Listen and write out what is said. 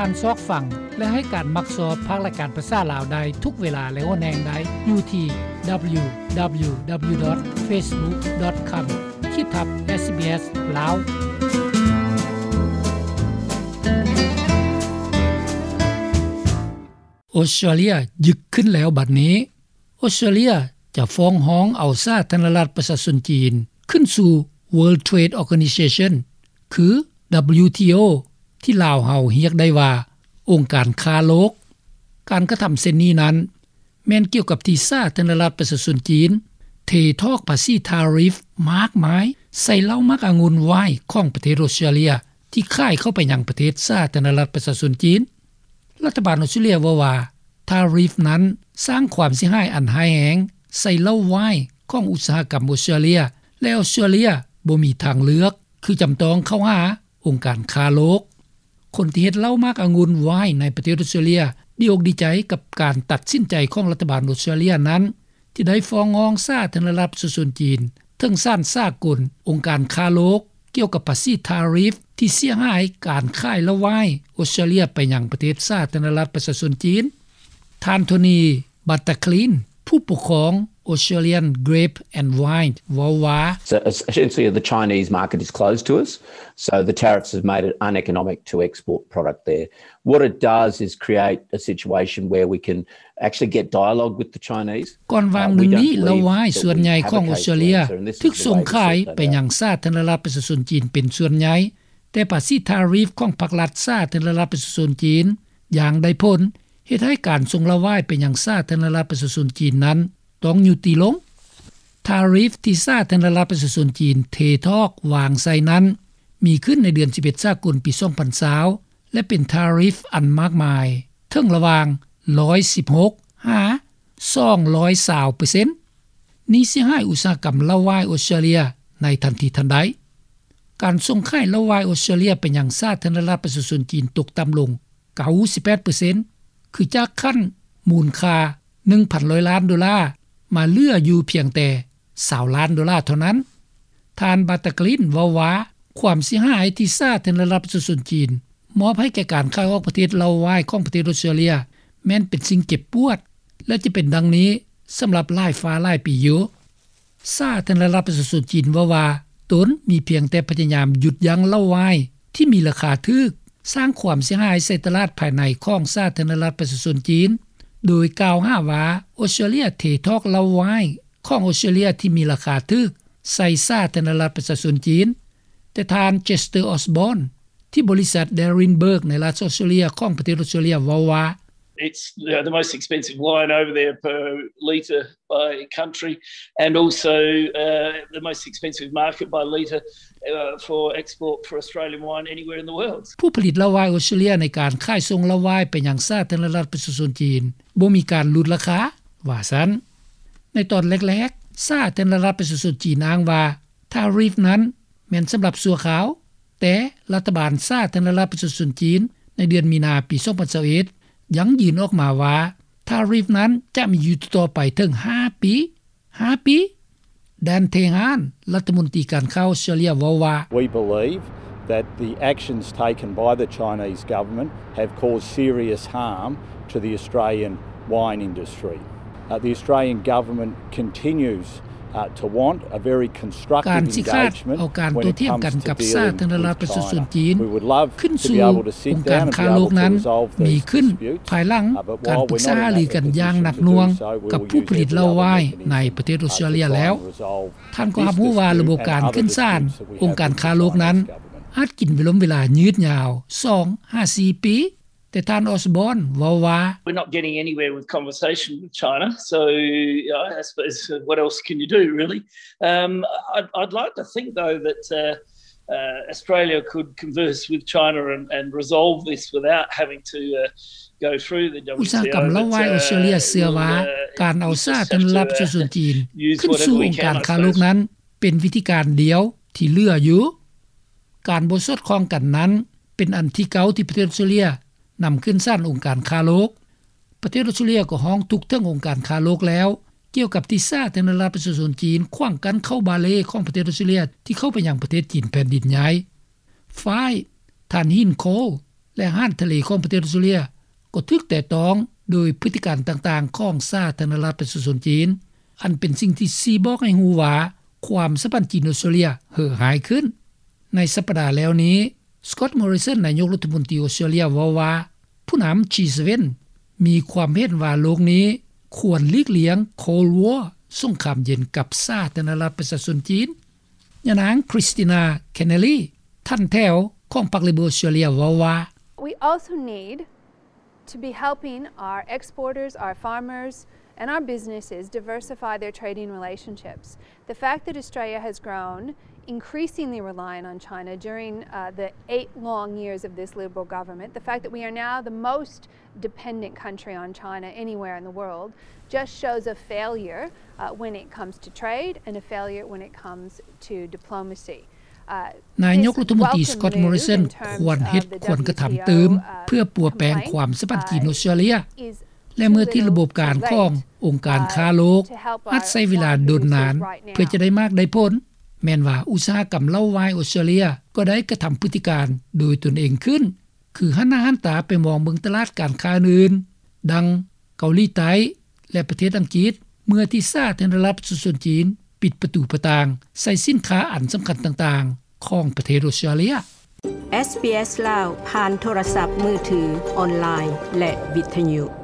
ທ່ານຊອກຟັງ ແລະ ໃຫ້ການມັກຊອບພາກລາຍການພາສາລາວໄດ້ທຸກເວລາ ແລະ ຫົວແຮງໄດ້ຢູ່ທີ່ www.facebook.com ຂີດທັບ SBS ລາວ. ອອສເຕຣເລຍຍຶກຂຶ້ນແລ້ວບັດນີ້. ອອສເຕຣເລຍຈະຟ້ອງຮ້ອງເອົາສາທາລະນະລັດປະຊາຊົນຈີນ ຂຶ້ນສູ່ World Trade Organization ຄື WTO ທີ່ລາວເຮົາຮຽກໄດ້ວ່າ ອົງການຄ້າໂລກ. ການກະທຳເຊັ່ນນີ້ນັ້ນ ແມ່ນກ່ຽວກັບທີ່ສາທາລະນະລັດປະຊາຊົນຈີນ ເທຖອກພາສີທາຣິຟມາກມາຍໃສ່ເຫຼົ້າໝາກອະງຸ່ນວາຍຂອງປະເທດອອສເຕຣເລຍ ທີ່ຂາຍເຂົ້າໄປຍັງປະເທດສາທາລະນະລັດປະຊາຊົນຈີນ. ລັດຖະບານອອສເຕຣເລຍເວົ້າວ່າ ທາຣິຟນັ້ນສ້າງຄວາມເສຍຫາຍອັນຮ້າຍແຮງໃສ່ເຫຼົ້າວາຍຂອງອຸດສາຫະກຳອອສເຕຣເລຍ ແລະ ອອສເຕຣເລຍບໍ່ມີທາງເລືອກ ຄືຈຳຕ້ອງເຂົ້າຫາອົງການຄ້າໂລກ. ຄົນທີ່ເຮັດເຫຼົ້າໝາກອະງຸ່ນວາຍໃນປະເທດອອສເຕຣເລຍ ດີອົກດີໃຈກັບການຕັດສິນໃຈຂອງລັດຖະບານອອສເຕຣເລຍນັ້ນ ທີ່ໄດ້ຟ້ອງຮ້ອງສາທາລະນະລັດປະຊາຊົນຈີນ ເຖິງສານສາກົນ ອົງການຄ້າໂລກ ກ່ຽວກັບພາສີທາຣິຟທີ່ເສຍຫາຍການຂາຍເຫຼົ້າວາຍອອສເຕຣເລຍໄປຍັງປະເທດສາທາລະນະລັດປະຊາຊົນຈີນ. ທ່ານ ໂທນີ ບັດຕາຄລີນ ຜູ້ປົກຄອງ Australian Grape and Wine ເວົ້າວ່າ So essentially the Chinese market is closed to us, so the tariffs have made it uneconomic to export product there. What it does is create a situation where we can actually get dialogue with the Chinese. ກ່ອນຫວ່າງໜຶ່ງນີ້ ເຫຼົ້າວາຍສ່ວນໃຫຍ່ຂອງອອສເຕຣເລຍຖືກສົ່ງຂາຍໄປຍັງສາທາລະນະລັດປະຊາຊົນຈີນເປັນສ່ວນໃຫຍ່, ແຕ່ພາສີທາຣິຟຂອງພັກລັດສາທາລະນະລັດປະຊາຊົນຈີນຢ່າງໄດ້ຜົນ ເຮັດໃຫ້ການສົ່ງເຫຼົ້າວາຍໄປຍັງສາທາລະນະລັດປະຊາຊົນຈີນນັ້ນຕ້ອງຍຸຕິລົງ. ທາຣິຟທີ່ສາທາລະນະລັດປະຊາຊົນຈີນເທຖອກວາງໃສ່ນັ້ນ ມີຂຶ້ນໃນເດືອນສິບເອັດ ສາກົນ ປີສອງພັນຊາວ ແລະ ເປັນທາຣິຟອັນມາກມາຍ ເຖິງລະຫວ່າງ ຮ້ອຍສິບຫົກ ຫາ ສອງຮ້ອຍຊາວເປີເຊັນ. ນີ້ເສຍຫາຍອຸດສາຫະກຳເຫຼົ້າວາຍອອສເຕຣເລຍໃນທັນທີທັນໃດ. ການສົ່ງຂາຍເຫຼົ້າວາຍອອສເຕຣເລຍໄປຍັງສາທາລະນະລັດປະຊາຊົນຈີນຕົກຕ່ຳລົງ ເກົ້າສິບແປດເປີເຊັນ ຄືຈາກຂັ້ນມູນຄ່າ ໜຶ່ງພັນຮ້ອຍລ້ານໂດລາ ມາເຫຼືອຢູ່ພຽງແຕ່ ຊາວລ້ານໂດລາເທົ່ານັ້ນ. ທ່ານ ບັດຕາຄລີນ ເວົ້າວ່າ ຄວາມເສຍຫາຍທີ່ສາທາລະນະລັດປະຊາຊົນຈີນມອບໃຫ້ແກ່ການຂາຍອອກປະເທດເຫຼົ້າວາຍຂອງປະເທດອອສເຕຣເລຍ ແມ່ນເປັນສິ່ງເຈັບປວດ ແລະ ຈະເປັນດັ່ງນີ້ສຳລັບຫຼາຍຟ້າຫຼາຍປີຢູ່. ສາທາລະນະລັດປະຊາຊົນຈີນເວົ້າວ່າ ຕົນມີພຽງແຕ່ພະຍາຍາມຢຸດຢັ້ງເຫຼົ້າວາຍທີ່ມີລາຄາຖືກ ສ້າງຄວາມເສຍຫາຍໃສ່ຕະຫຼາດພາຍໃນຂອງສາທາລະນະລັດປະຊາຊົນຈີນ ໂດຍກ່າວຫາວ່າ ອອສເຕຣເລຍເທຖອກເຫຼົ້າວາຍຂອງອອສເຕຣເລຍທີ່ມີລາຄາຖືກໃສ່ສາທາລະນະລັດປະຊາຊົນຈີນ. ແຕ່ທ່ານ ເຈສເຕີ ອອສບອນ ທີ່ບໍລິສັດ Derenberg ໃນລັດອອສເຕຣເລຍຂອງປະເທດອອສເຕຣເລຍເວົ້າວ່າ It's, uh, the most expensive wine over there per litre by country and also, uh, the most expensive market by litre, uh, for export for Australian wine anywhere in the world. ຜູ້ຜະລິດເຫຼົ້າວາຍອອສເຕຣເລຍໃນການຂາຍສົ່ງເຫຼົ້າວາຍໄປຍັງສາທາລະນະລັດປະຊາຊົນຈີນ ບໍ່ມີການຫຼຸດລາຄາ ວ່າຊັ້ນ. ໃນຕອນແລກໆ ສາທາລະນະລັດປະຊາຊົນຈີນອ້າງວ່າ ທາຣິຟນັ້ນແມ່ນສຳລັບຊົ່ວຄາວ, ແຕ່ລັດຖະບານສາທາລະນະລັດປະຊາຊົນຈີນໃນເດືອນມີນາປີສອງພັນຊາວເອັດ ຢັ້ງຢືນອອກມາວ່າ ທາຣິຟນັ້ນຈະມີຢູ່ຕໍ່ໄປເຖິງຫ້າປີ, ຫ້າປີ. ແດນ ເທຮານ ລັດຖະມົນຕີການຄ້າອອສເຕຣເລຍເວົ້າວ່າ We believe that the actions taken by the Chinese government have caused serious harm to the Australian wine industry. Uh, the Australian government continues, uh, to want a very constructive engagement when it comes to dealing with China. ການຊິຂາດເອົາການໂຕ້ຖຽງກັນກັບສາທາລະນະລັດປະຊາຊົນຈີນ We would love to be able to sit down and be able to resolve these issues, but while we're not in a position to do so, we will continue to support the Chinese government in their efforts to deal with China. ຂຶ້ນສູ່ອົງການຄ້າໂລກນັ້ນ ມີຂຶ້ນພາຍຫຼັງການປຶກສາຫາລືກັນຢ່າງໜັກໜ່ວງກັບຜູ້ຜະລິດເຫຼົ້າວາຍໃນປະເທດອອສເຕຣເລຍແລ້ວ. ທ່ານກໍຮັບຮູ້ວ່າລະບົບການຂຶ້ນສານອົງການຄ້າໂລກນັ້ນ ອາດກິນເວລົມເວລາຍືດຍາວສອງຫາສີ່ປີ, ແຕ່ທ່ານ ອອສບອນ ເວົ້າວ່າ We're not getting anywhere with conversation with China, so, you know, I suppose, uh, what else can you do, really? Um, I'd, I'd like to think, though, that, uh, uh, Australia could converse with China and, and resolve this without having to, uh, go through the WTO, but, uh, we'll, uh, just have to, uh, use whatever we can, I suppose. ອຸດສາຫະກຳເຫຼົ້າວາຍອອສເຕຣເລຍເຊື່ອວ່າ ການເອົາສາທາລະນະລັດປະຊາຊົນຈີນຂຶ້ນສູ່ອົງການຄ້າໂລກນັ້ນ ເປັນວິທີການດຽວທີ່ເຫຼືອຢູ່. ການບໍ່ສອດຄ່ອງກັນນັ້ນ ເປັນອັນທີເກົ້າທີ່ປະເທດອອສເຕຣເລຍນຳຂຶ້ນສານອົງການຄ້າໂລກ. ປະເທດອອສເຕຣເລຍກໍຮ້ອງທຸກເຖິງອົງການຄ້າໂລກແລ້ວ ກ່ຽວກັບທີ່ສາທາລະນະລັດປະຊາຊົນຈີນຂວາງກັ້ນເຂົ້າບາເລຂອງປະເທດອອສເຕຣເລຍທີ່ເຂົ້າໄປຍັງປະເທດຈີນແຜ່ນດິນໃຫຍ່. ຝ່າຍ ທ່ານ ຮິນ ໂຄລ ແລະຮ້ານທະເລຂອງປະເທດອອສເຕຣເລັຽ ກໍຖືກແຕະຕ້ອງໂດຍພຶດຕິການຕ່າງໆ ຂອງສາທາລະນະລັດປະຊາຊົນຈີນ ອັນເປັນສິ່ງທີ່ຊີ້ບອກໃຫ້ຮູ້ວ່າ ຄວາມສຳພັນຈີນ-ອອສເຕຣເລັຽເຫີຮ້າຍຂຶ້ນ. ໃນສັປດາແລ້ວນີ້ Scott Morrison ນາຍົກລັດຖະມົນຕີອອສເຕຣເລັຽເວົ້າວ່າ ຜູ້ນຳ G seven ມີຄວາມເຫັນວ່າໂລກນີ້ຄວນຫຼີກລ່ຽງ Cold War ສົງຄາມເຢັນ ກັບສາທາລະນະລັດປະຊາຊົນຈີນ. ຍານາງ Christina Kenneally ທ່ານແຖວຂອງພັກ Labor ອອສເຕຣເລັຽເວົ້າວ່າ We also need to be helping our exporters, our farmers, and our businesses diversify their trading relationships. The fact that Australia has grown increasingly reliant on China during, uh, the eight long years of this Liberal government, the fact that we are now the most dependent country on China anywhere in the world, just shows a failure, uh, when it comes to trade and a failure when it comes to diplomacy. ນາຍົກລັດຖະມົນຕີ Scott Morrison ຄວນເຮັດຄວນກະທຳຕື່ມ ເພື່ອປົວແປງຄວາມສຳພັນຈີນ-ອອສເຕຣເລັຽ ແລະເມື່ອທີ່ລະບົບການຂອງອົງການຄ້າໂລກ ອາດໃຊ້ເວລາດົນນານເພື່ອຈະໄດ້ໝາກໄດ້ຜົນ ແມ່ນວ່າອຸດສາຫະກຳເຫຼົ້າວາຍອອສເຕຣເລັຽ ກໍໄດ້ກະທຳພຶດຕິການໂດຍຕົນເອງຂຶ້ນ ຄືຫັນໜ້າຫັນຕາໄປມອງເບິ່ງຕະຫຼາດການຄ້າອື່ນໆ ດັ່ງເກົາຫຼີໃຕ້ ແລະປະເທດອັງກິດ ເມື່ອທີ່ສາທາລະນະລັດປະຊາຊົນຈີນ ປິດປະຕູປະຕ່າງໃສ່ສິນຄ້າອັນສຳຄັນຕ່າງໆ ຂອງປະເທດອອສເຕຣເລັຽ. ເອສບີເອສ ລາວ ຜ່ານໂທລະສັບມືຖື, ອອນລາຍ ແລະ ວິທະຍຸ.